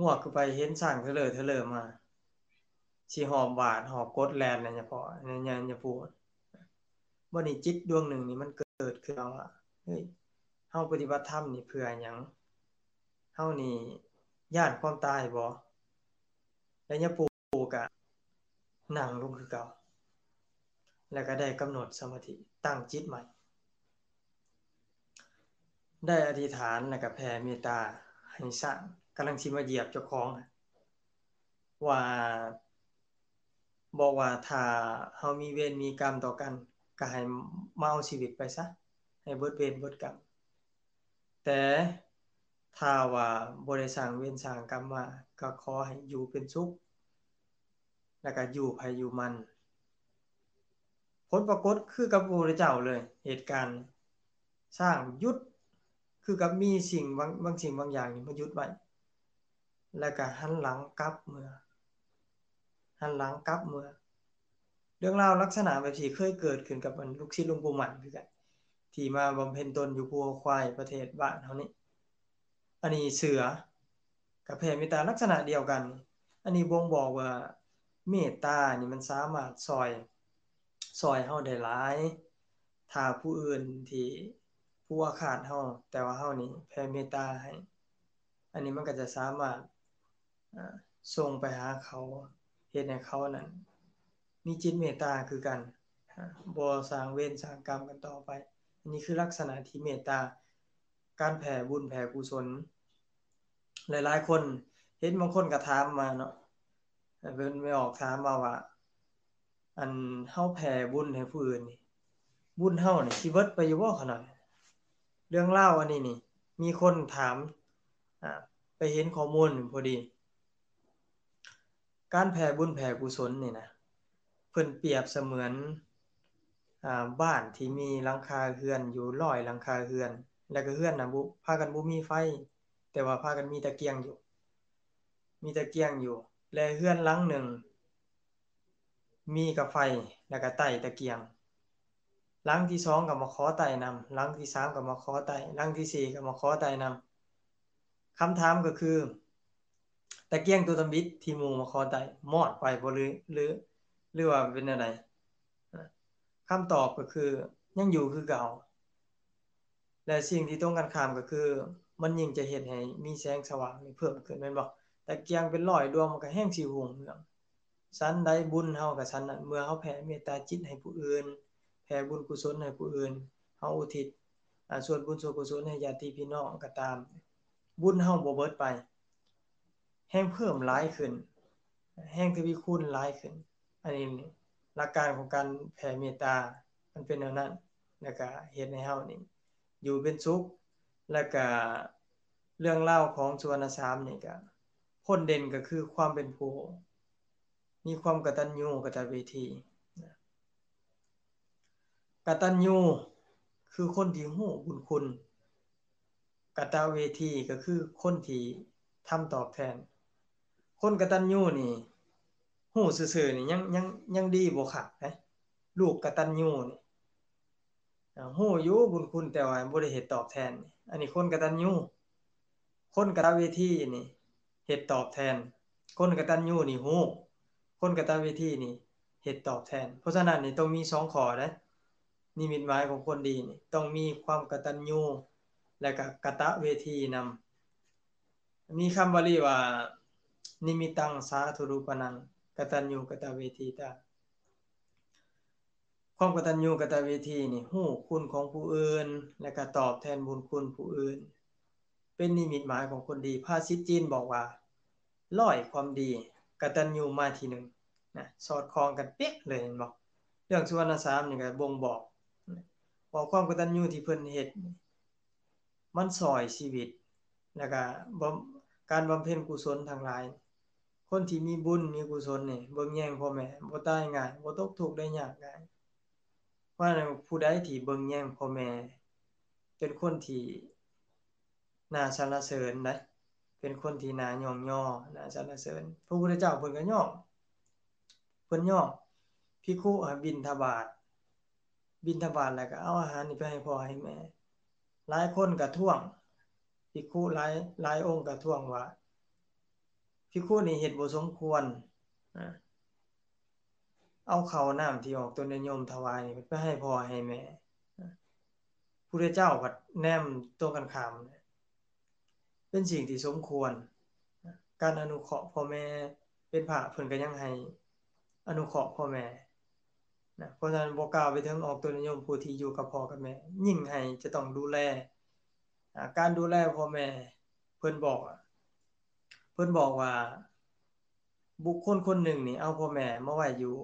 ງວກຂຶ້ນໄປເຫັນຊ້າງເທີເລີເທີເລີມາ ຊິຫອບບາດຫອບກົດແລ່ນນະ ຍາພໍ່ ຍາ ຍາ ຍາປູ່. ບັດນີ້ຈິດດວງໜຶ່ງນີ້ມັນເກີດຂຶ້ນມາວ່າ ເຮີ້ຍ ເຮົາປະຕິບັດທຳນີ້ເພື່ອຫຍັງ? ເຮົານີ້ຢ້ານຄວາມຕາຍບໍ່? ແລະຍາປູ່ກໍນັ່ງລົງຄືເກົ່າ ແລ້ວກໍໄດ້ກຳນົດສະມາທິ ຕັ້ງຈິດໃໝ່ ໄດ້ອະທິຖານ ແລ້ວກໍແຜ່ເມດຕາໃຫ້ຊ້າງ ກຳລັງຊິມາຢຽບເຈົ້າຂອງ ວ່າ ບອກວ່າຖ້າເຮົາມີເວນມີກຳຕໍ່ກັນ ກໍໃຫ້ມາເອົາຊີວິດໄປຊະ ໃຫ້ເບິດເວນເບິດກຳ. ແຕ່ຖ້າວ່າບໍ່ໄດ້ສ້າງເວນສ້າງກຳມາ ກໍຂໍໃຫ້ຢູ່ເປັນສຸກ ແລ້ວກໍຢູ່ໃຜຢູ່ມັນ. ຜົນປາກົດຄືກັບພະພຸດທະເຈົ້າເລີຍ ເຫດການຊ້າງຢຸດ ຄືກັບມີສິ່ງບາງ ບາງສິ່ງບາງຢ່າງນີ້ມາຢຸດໄວ້ ແລ້ວກໍຫັນຫຼັງກັບເມືອ ຫັນຫຼັງກັບເມືອ. ເລື່ອງລາວລັກສະນະແບບນີ້ເຄີຍເກີດຂຶ້ນກັບອັນລູກສິດຫຼວງປູ່ໝັ້ນຄືກັນ ທີ່ມາບຳເພັນຕົນຢູ່ພູເຂົາຄວາຍ ປະເທດບ້ານເຮົານີ້. ອັນນີ້ເສືອກໍແຜ່ເມດຕາລັກສະນະດຽວກັນ. ອັນນີ້ບົ່ງບອກວ່າເມດຕານີ້ມັນສາມາດຊ່ອຍ ຊ່ອຍເຮົາໄດ້ຫຼາຍ. ຖ້າຜູ້ອື່ນທີ່ ຜູ້ອາຄາດເຮົາ ແຕ່ວ່າເຮົານີ້ແຜ່ເມດຕາໃຫ້ ອັນນີ້ມັນກໍຈະສາມາດ ອາ ສົ່ງໄປຫາເຂົາ ເຮັດໃຫ້ເຂົານັ້ນມີຈິດເມດຕາຄືກັນ ອາ ບໍ່ສ້າງເວນສ້າງກຳກັນຕໍ່ໄປ. ອັນນີ້ຄືລັກສະນະທີ່ເມດຕາ ການແຜ່ບຸນແຜ່ກຸສົນ. ຫຼາຍໆຄົນ ເຫັນບາງຄົນກໍຖາມມາເນາະ ເພິ່ນໄປອອກຖາມມາວ່າ ອັນເຮົາແຜ່ບຸນໃຫ້ຜູ້ອື່ນນີ້ ບຸນເຮົານີ້ຊິເບິດໄປຢູ່ບໍ່ຂະນ້ອຍ? ເລື່ອງລາວອັນນີ້ນີ້ ມີຄົນຖາມ ອາ ໄປເຫັນຂໍ້ມູນພໍດີ. ການແຜ່ບຸນແຜ່ກຸສົນນີ້ນະ ເພິ່ນປຽບສະເໝືອນ ອາ ບ້ານທີ່ມີຫຼັງຄາເຮືອນຢູ່ຮ້ອຍຫຼັງຄາເຮືອນ ແລ້ວກໍເຮືອນນະ ບໍ່ ພາກັນບໍ່ມີໄຟ ແຕ່ວ່າພາກັນມີຕະກຽງຢູ່ ມີຕະກຽງຢູ່ ແລະ ເຮືອນຫຼັງໜຶ່ງ ມີກະໄຟ ແລ້ວກະໄຕ້ຕະກຽງ. ຫຼັງທີສອງກໍມາຂໍໄຕ້ນຳ, ຫຼັງທີສາມກໍມາຂໍໄຕ້, ຫຼັງທີສີ່ກໍມາຂໍໄຕ້ນຳ. ຄຳຖາມກໍຄື ຕະກຽງຕົວທຳອິດທີ່ໝູ່ມາຂໍໄຕ້ ມອດໄປບໍ່ ຫຼື ຫຼື ຫຼືວ່າເປັນແນວໃດ? ຄຳຕອບກໍຄື ຍັງຢູ່ຄືເກົ່າ. ແລະ ສິ່ງທີ່ຕົງກັນຂ້າມກໍຄື ມັນຍິ່ງຈະເຮັດໃຫ້ມີແສງສະຫວ່າງນີ້ເພີ່ມຂຶ້ນແມ່ນບໍ່? ຕະກຽງເປັນຮ້ອຍດວງ ມັນກໍແຮ່ງຊິຮຸ່ງເຮືອງ. ສັນໃດບຸນເຮົາກໍສັນນັ້ນ, ເມື່ອເຮົາແຜ່ເມດຕາຈິດໃຫ້ຜູ້ອື່ນ, ແຜ່ບຸນກຸສົນໃຫ້ຜູ້ອື່ນ, ເຮົາອຸທິດ ອາ ສ່ວນບຸນສ່ວນກຸສົນໃຫ້ຍາດຕິພີ່ນ້ອງກໍຕາມ, ບຸນເຮົາບໍ່ເບິດໄປ, ແຮ່ງເພີ່ມຫຼາຍຂຶ້ນ, ແຮ່ງທະວີຄູນຫຼາຍຂຶ້ນ. ອັນນີ້ຫຼັກການຂອງການແຜ່ເມດຕາ ມັນເປັນແນວນັ້ນ, ແລ້ວກະເຮັດໃຫ້ເຮົານີ້ຢູ່ເປັນສຸກ. ແລ້ວກະເລື່ອງລາວຂອງສຸວັນນະສາມນີ້ກະ ພົ້ນເດັ່ນກໍຄືຄວາມເປັນຜູ້ມີຄວາມກະຕັນຍູກະຕະເວທີ. ກະຕັນຍູຄືຄົນທີ່ຮູ້ບຸນຄຸນ, ກະຕະເວທີກໍຄືຄົນທີ່ທຳຕອບແທນ. ຄົນກະຕັນຍູນີ້ ຮູ້ຊື່ໆນີ້ຍັງ ຍັງ ຍັງດີບໍ່ຄັກເດ້. ລູກກະຕັນຍູນີ້ ອາ ຮູ້ຢູ່ບຸນຄຸນ ແຕ່ວ່າບໍ່ໄດ້ເຮັດຕອບແທນ. ອັນນີ້ຄົນກະຕັນຍູ. ຄົນກະຕະເວທີນີ້ເຮັດຕອບແທນ. ຄົນກະຕັນຍູນີ້ຮູ້, ຄົນກະຕະເວທີນີ້ເຮັດຕອບແທນ. ເພາະສະນັ້ນນີ້ຕ້ອງມີສອງຂໍ້ເດ້. ນິມິດໝາຍຂອງຄົນດີນີ້ ຕ້ອງມີຄວາມກະຕັນຍູ ແລະກະກະຕະເວທີນຳ. ມີຄຳບາລີວ່າ ນິມິດຕັງສາທຸຣູປະນັງ ກະຕັນຍູກະຕະເວທີຕາ. ຄວາມກະຕັນຍູກະຕະເວທີນີ້ ຮູ້ຄຸນຂອງຜູ້ອື່ນ ແລະກະຕອບແທນບຸນຄຸນຜູ້ອື່ນ ເປັນນິມິດໝາຍຂອງຄົນດີ. ພາສິດຈີນບອກວ່າ ຮ້ອຍຄວາມດີ ກະຕັນຍູມາທີໜຶ່ງນະ ສອດຄ່ອງກັນເປະເລີຍ ເຫັນບໍ່? ເລື່ອງສຸວັນນະສາມນີ້ກໍບົ່ງບອກ ເພາະຄວາມກະຕັນຍູທີ່ເພິ່ນເຮັດ ມັນຊ່ອຍຊີວິດ ແລ້ວກະບຳ ການບຳເພັນກຸສົນທັງຫຼາຍ. ຄົນທີ່ມີບຸນມີກຸສົນນີ້ ເບິ່ງແຍງພໍ່ແມ່ ບໍ່ຕາຍງ່າຍ ບໍ່ຕົກທຸກໄດ້ຍາກງ່າຍ. ເພາະນັ້ນ ຜູ້ໃດທີ່ເບິ່ງແຍງພໍ່ແມ່ ເປັນຄົນທີ່ໜ້າສັນລະເສີນໃດ໋ ເປັນຄົນທີ່ໜ້າຍ້ອງຍໍ ໜ້າສັນລະເສີນ. ພະພຸດທະເຈົ້າເພິ່ນກໍຍ້ອງ ເພິ່ນຍ້ອງພິກຂຸໃຫ້ບິນທະບາດ ບິນທະບາດແລ້ວກໍເອົາອາຫານນີ້ໄປໃຫ້ພໍ່ໃຫ້ແມ່. ຫຼາຍຄົນກໍທ້ວງ ພິກຂຸຫຼາຍ ຫຼາຍອົງກໍທ້ວງວ່າ ພິກຂຸນີ້ເຮັດບໍ່ສົມຄວນ ອາ ເອົາເຂົ້ານ້ຳທີ່ອອກຕົນຍາດໂຍມຖວາຍນີ້ໄປໃຫ້ພໍ່ໃຫ້ແມ່. ອາ ພຸດທະເຈົ້າພັດແນມຕົງກັນຂ້າມ ເປັນສິ່ງທີ່ສົມຄວນ. ການອະນຸເຄາະພໍ່ແມ່ ເປັນພະເພິ່ນກໍຍັງໃຫ້ອະນຸເຄາະພໍ່ແມ່ນະ. ເພາະສະນັ້ນ ບໍ່ກ່າວໄປເຖິງອອກຕົນຍາດໂຍມຜູ້ທີ່ຢູ່ກັບພໍ່ກັບແມ່ ຍິ່ງໃຫ້ຈະຕ້ອງດູແລ. ອາ ການດູແລພໍ່ແມ່ ເພິ່ນບອກ ເພິ່ນບອກວ່າ ບຸກຄົນຄົນໜຶ່ງນີ້ເອົາພໍ່ແມ່ມາໄວ້ຢູ່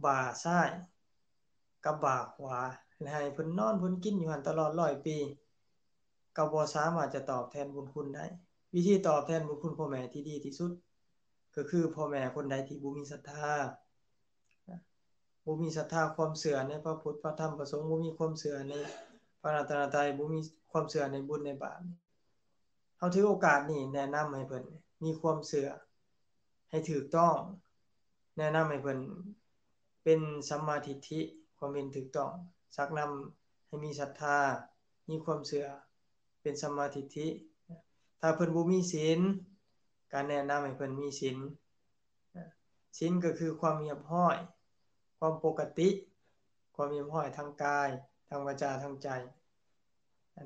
ບ່າຊ້າຍກັບບ່າຂວາ ແລະ ໃຫ້ເພິ່ນນອນເພິ່ນກິນຢູ່ຫັ້ນຕະຫຼອດຮ້ອຍປີ ກໍບໍ່ສາມາດຈະຕອບແທນບຸນຄຸນໄດ້. ວິທີຕອບແທນບຸນຄຸນພໍ່ແມ່ທີ່ດີທີ່ສຸດ ກໍຄືພໍ່ແມ່ຄົນໃດທີ່ບໍ່ມີສັດທາ ບໍ່ມີສັດທາຄວາມເຊື່ອໃນພະພຸດ ພະທຳ ພະສົງ, ບໍ່ມີຄວາມເຊື່ອໃນພະລັດຕະນະໄຕ, ບໍ່ມີຄວາມເຊື່ອໃນບຸນໃນບາບ, ເຮົາຖືໂອກາດນີ້ແນະນຳໃຫ້ເພິ່ນມີຄວາມເຊື່ອໃຫ້ຖືກຕ້ອງ, ແນະນຳໃຫ້ເພິ່ນເປັນສຳມາທິດຖິ, ຄວາມເຫັນຖືກຕ້ອງ, ຊັກນຳໃຫ້ມີສັດທາ, ມີຄວາມເຊື່ອ ເປັນສຳມາທິດຖິ. ຖ້າເພິ່ນບໍ່ມີສິນ, ການແນະນຳໃຫ້ເພິ່ນມີສິນ. ສິນກໍຄືຄວາມຮຽບຮ້ອຍ, ຄວາມປົກກະຕິ, ຄວາມຮຽບຮ້ອຍທາງກາຍ, ທາງວາຈາ, ທາງໃຈ.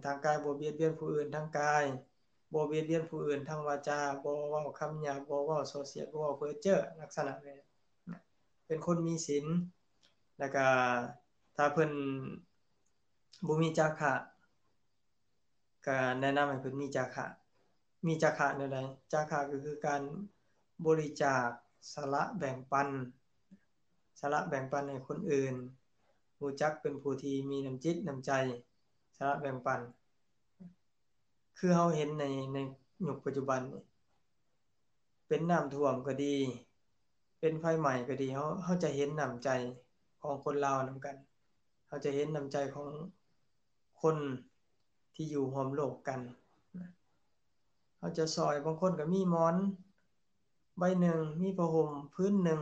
ທາງກາຍບໍ່ບຽດບຽນຜູ້ອື່ນ, ທາງກາຍບໍ່ບຽດບຽນຜູ້ອື່ນ, ທາງວາຈາບໍ່ເວົ້າຄຳຫຍາບ, ບໍ່ເວົ້າສໍ້ສຽດ, ບໍ່ເວົ້າເພີ້ເຈີ້, ລັກສະນະແບບເປັນຄົນມີສິນ. ແລ້ວກະຖ້າເພິ່ນບໍ່ມີຈາຄະ, ກະແນະນຳໃຫ້ເພິ່ນມີຈາຄະ. ມີຈາຄະແນວໃດ? ຈາຄະກໍຄືການບໍລິຈາກ, ສະຫຼະແບ່ງປັນ, ສະຫຼະແບ່ງປັນໃຫ້ຄົນອື່ນ, ຮູ້ຈັກເປັນຜູ້ທີ່ມີນ້ຳຈິດນ້ຳໃຈ, ສະຫຼະແບ່ງປັນ. ຄືເຮົາເຫັນໃນ, ໃນຍຸກປັດຈຸບັນນີ້, ເປັນນ້ຳຖ້ວມກໍດີ, ເປັນໄຟໄໝ້ກໍດີ, ເຮົາ, ເຮົາຈະເຫັນນ້ຳໃຈຂອງຄົນລາວນຳກັນ, ເຮົາຈະເຫັນນ້ຳໃຈຂອງ ຄົນທີ່ຢູ່ຮ່ວມໂລກກັນ. ເຮົາຈະຊ່ອຍ, ບາງຄົນກໍມີໝອນໃບໜຶ່ງ, ມີຜ້າຫົ່ມພື້ນໜຶ່ງ,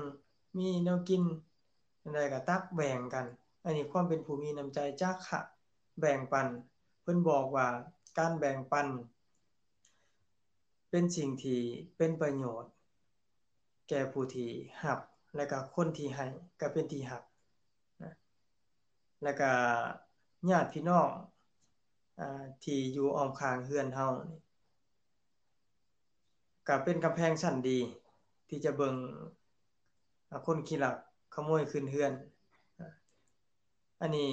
ມີແນວກິນ ແນວໃດກໍຕັກແບ່ງກັນ. ອັນນີ້ຄວາມເປັນຜູ້ມີນ້ຳໃຈ, ຈາຄະແບ່ງປັນ. ເພິ່ນບອກວ່າການແບ່ງປັນເປັນສິ່ງທີ່ເປັນປະໂຫຍດ ແກ່ຜູ້ທີ່ຮັບ ແລະກະຄົນທີ່ໃຫ້ກໍເປັນທີ່ຮັກນະ. ແລະກະຍາດພີ່ນ້ອງ ອາ ທີ່ຢູ່ອ້ອມຂ້າງເຮືອນເຮົານີ້ ກໍເປັນກຳແພງຊັ້ນດີທີ່ຈະເບິ່ງ ອາ ຄົນຂີ້ລັກຂະໂມຍຂຶ້ນເຮືອນ. ອັນນີ້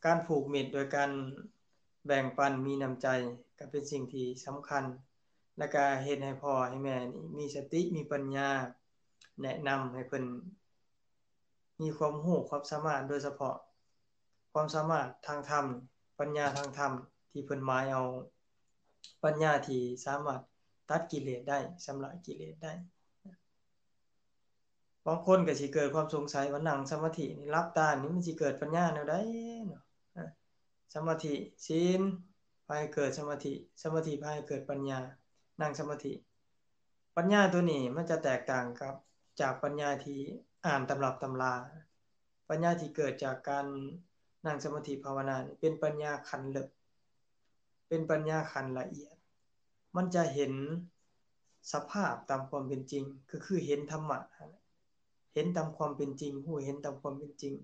ການຜູກມິດໂດຍການແບ່ງປັນ, ມີນ້ຳໃຈ ກໍເປັນສິ່ງທີ່ສຳຄັນ ແລະກະເຮັດໃຫ້ພໍ່ໃຫ້ແມ່ນີ້ມີສະຕິ ມີປັນຍາ ແນະນຳໃຫ້ເພິ່ນມີຄວາມຮູ້ຄວາມສາມາດ, ໂດຍສະເພາະຄວາມສາມາດທາງທຳ, ປັນຍາທາງທຳ ທີ່ເພິ່ນໝາຍເອົາປັນຍາທີ່ສາມາດຕັດກິເລດໄດ້, ຊຳລະກິເລດໄດ້. ບາງຄົນກໍຊິເກີດຄວາມສົງໄສວ່ານັ່ງສະມາທິນີ້ ຫຼັບຕານີ້ ມັນຊິເກີດປັນຍາແນວໃດເນາະ? ອາ ສະມາທິ, ສິນ ພາໃຫ້ເກີດສະມາທິ, ສະມາທິພາໃຫ້ເກີດປັນຍາ, ນັ່ງສະມາທິ. ປັນຍາຕົວນີ້ມັນຈະແຕກຕ່າງກັບ ຈາກປັນຍາທີ່ອ່ານຕຳລັບຕຳລາ. ປັນຍາທີ່ເກີດຈາກການນັ່ງສະມາທິພາວະນານີ້ ເປັນປັນຍາຂັ້ນເລິກ, ເປັນປັນຍາຂັ້ນລະອຽດ. ມັນຈະເຫັນສະພາບຕາມຄວາມເປັນຈິງ, ກໍຄືເຫັນທຳມະຫັ້ນແຫຼະ, ເຫັນຕາມຄວາມເປັນຈິງ, ຮູ້ເຫັນຕາມຄວາມເປັນຈິງ.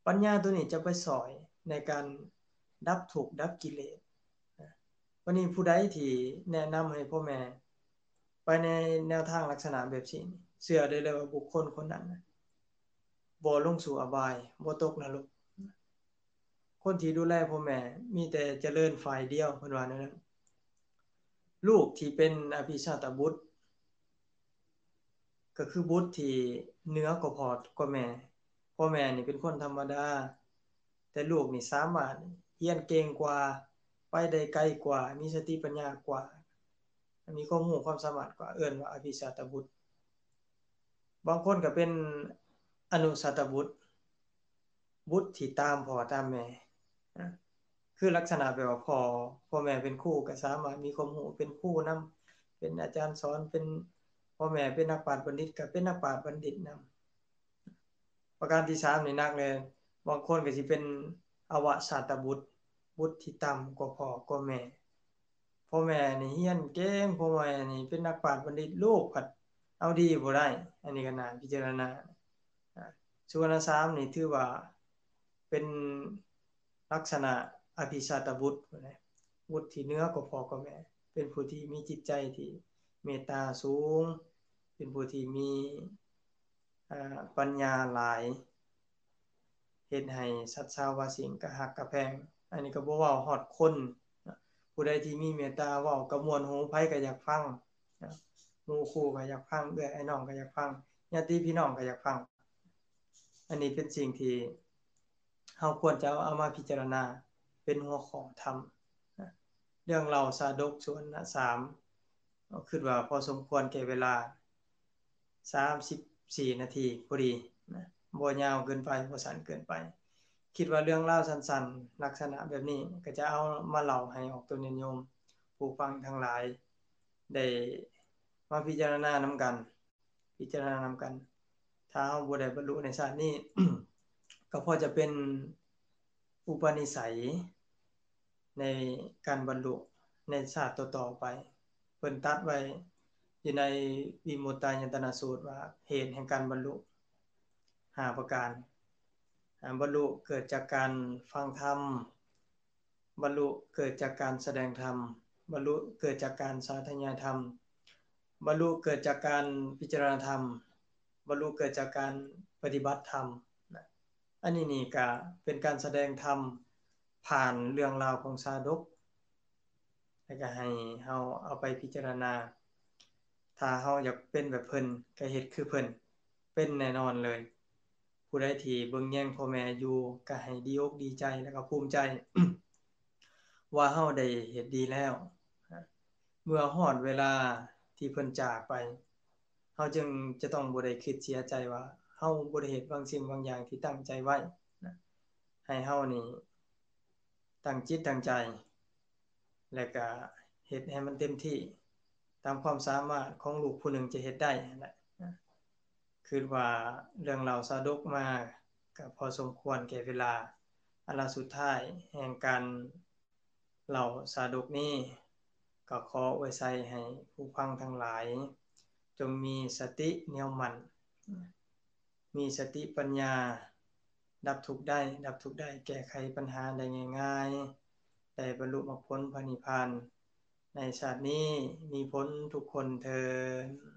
ປັນຍາໂຕນີ້ຈະໄປຊ່ອຍໃນການດັບທຸກດັບກິເລດ. ວັນນີ້ຜູ້ໃດທີ່ແນະນຳໃຫ້ພໍ່ແມ່ໄປໃນແນວທາງລັກສະນະແບບນີ້ ເຊື່ອໄດ້ເລີຍວ່າບຸກຄົນຄົນນັ້ນນະ ບໍ່ລົງສູ່ອະບາຍ ບໍ່ຕົກນະລົກ. ຄົນທີ່ດູແລພໍ່ແມ່ມີແຕ່ຈະເລີນຝ່າຍດຽວ ເພິ່ນວ່າແນວນັ້ນ. ລູກທີ່ເປັນອະພິຊາດຕະບຸດ ກໍຄືບຸດທີ່ເໜືອກວ່າພໍ່ກວ່າແມ່. ພໍ່ແມ່ນີ້ເປັນຄົນທຳມະດາ ແຕ່ລູກນີ້ສາມາດຮຽນເກັ່ງກວ່າ ໄປໄດ້ໄກກວ່າ ມີສະຕິປັນຍາກວ່າ ມີຄວາມຮູ້ຄວາມສາມາດກວ່າ ເອີ້ນວ່າອະພິຊາດຕະບຸດ. ບາງຄົນກໍເປັນອະນຸຊາດຕະບຸດ ບຸດທີ່ຕາມພໍ່ຕາມແມ່ ນະ ຄືລັກສະນະແບບວ່າພໍ່ ພໍ່ແມ່ເປັນຄູກໍສາມາດມີຄວາມຮູ້ເປັນຄູນຳ ເປັນອາຈານສອນ ເປັນ ພໍ່ແມ່ເປັນນັກປາດບັນດິດກໍເປັນນັກປາດບັນດິດນຳ. ປະການທີສາມນີ້ໜັກເລີຍ ບາງຄົນກໍຊິເປັນອະວະຊາດຕະບຸດ ບຸດທີ່ຕ່ຳກວ່າພໍ່ກວ່າແມ່. ພໍ່ແມ່ນີ້ຮຽນເກັ່ງ ພໍ່ແມ່ນີ້ເປັນນັກປາດບັນດິດ ລູກພັດເອົາດີບໍ່ໄດ້ ອັນນີ້ກໍໜ້າພິຈາລະນາ. ອາ ສຸວັນນະສາມນີ້ຖືວ່າເປັນລັກສະນະອະພິຊາດຕະບຸດ ບຸດທີ່ເໜືອກວ່າພໍ່ກວ່າແມ່ ເປັນຜູ້ທີ່ມີຈິດໃຈທີ່ເມດຕາສູງ ເປັນຜູ້ທີ່ມີ ອາ ປັນຍາຫຼາຍ ເຮັດໃຫ້ສັດຊາວາສິ່ງກະຮັກກະແພງ. ອັນນີ້ກໍບໍ່ເວົ້າຮອດຄົນນະ ຜູ້ໃດທີ່ມີເມດຕາເວົ້າກໍມ່ວນຫູ ໃຜກໍຢາກຟັງນະ ໝູ່ຄູ່ກໍຢາກຟັງ ເອື້ອຍອ້າຍນ້ອງກໍຢາກຟັງ ຍາດຕິພີ່ນ້ອງກໍຢາກຟັງ. ອັນນີ້ເປັນສິ່ງທີ່ເຮົາຄວນຈະເອົາມາພິຈາລະນາເປັນຫົວຂໍ້ທຳນະ. ເລື່ອງເລົ່າຊາດົກ ສຸວັນນະສາມ ຄິດວ່າພໍສົມຄວນແກ່ເວລາ ສາມສິບສີ່ນາທີພໍດີນະ ບໍ່ຍາວເກີນໄປ ບໍ່ສັ້ນເກີນໄປ. ຄິດວ່າເລື່ອງລາວສັ້ນໆ ລັກສະນະແບບນີ້ ກໍຈະເອົາມາເລົ່າໃຫ້ອອກຕົນຍາດໂຍມຜູ້ຟັງທັງຫຼາຍ ໄດ້ມາພິຈາລະນານຳກັນ ພິຈາລະນານຳກັນ. ຖ້າເຮົາບໍ່ໄດ້ບັນລຸໃນຊາດນີ້ ກໍພໍຈະເປັນອຸປະນິໄສ ໃນການບັນລຸໃນຊາດຕໍ່ໆໄປ. ເພິ່ນຕັດໄວ້ຢູ່ໃນວິມຸດຕາຍະຕະນະສູດວ່າ ເຫດແຫ່ງການບັນລຸຫ້າປະການ. ອາ ບັນລຸເກີດຈາກການຟັງທຳ, ບັນລຸເກີດຈາກການສະແດງທຳ, ບັນລຸເກີດຈາກການສາທະຍາຍທຳ, ບັນລຸເກີດຈາກການພິຈາລະນາທຳ, ບັນລຸເກີດຈາກການປະຕິບັດທຳນະ. ອັນນີ້ນີ້ກະເປັນການສະແດງທຳຜ່ານເລື່ອງລາວຂອງຊາດົກ ແລ້ວກະໃຫ້ເຮົາເອົາໄປພິຈາລະນາ. ຖ້າເຮົາຢາກເປັນແບບເພິ່ນ ກະເຮັດຄືເພິ່ນ ເປັນແນ່ນອນເລີຍ. ຜູ້ໃດທີ່ເບິ່ງແຍງພໍ່ແມ່ຢູ່ ກະໃຫ້ດີອົກດີໃຈ ແລ້ວກະພູມໃຈ ວ່າເຮົາໄດ້ເຮັດດີແລ້ວ. ເມື່ອຮອດເວລາທີ່ເພິ່ນຈາກໄປ ເຮົາຈຶ່ງຈະຕ້ອງບໍ່ໄດ້ຄິດເສຍໃຈວ່າ ເຮົາບໍ່ໄດ້ເຮັດບາງສິ່ງບາງຢ່າງທີ່ຕັ້ງໃຈໄວ້ນະ. ໃຫ້ເຮົານີ້ຕັ້ງຈິດຕັ້ງໃຈ ແລະກະເຮັດໃຫ້ມັນເຕັມທີ່ ຕາມຄວາມສາມາດຂອງລູກຜູ້ໜຶ່ງຈະເຮັດໄດ້ຫັ້ນແຫຼະ. ຄິດວ່າເລື່ອງເລົ່າຊາດົກມາກະພໍສົມຄວນແກ່ເວລາ. ອັນລະສຸດທ້າຍແຫ່ງການ ເລົ່າຊາດົກນີ້ ກໍຂໍອວຍໄຊໃຫ້ຜູ້ຟັງທັງຫຼາຍ ຈົ່ງມີສະຕິໜຽວໝັ້ນ, ມີສະຕິປັນຍາ, ດັບທຸກໄດ້, ດັບທຸກໄດ້, ແກ້ໄຂປັນຫາໄດ້ງ່າຍໆ, ໄດ້ບັນລຸມັກຜົນພະນິບພານໃນຊາດນີ້ ມີຜົນທຸກຄົນເທີ້ນ.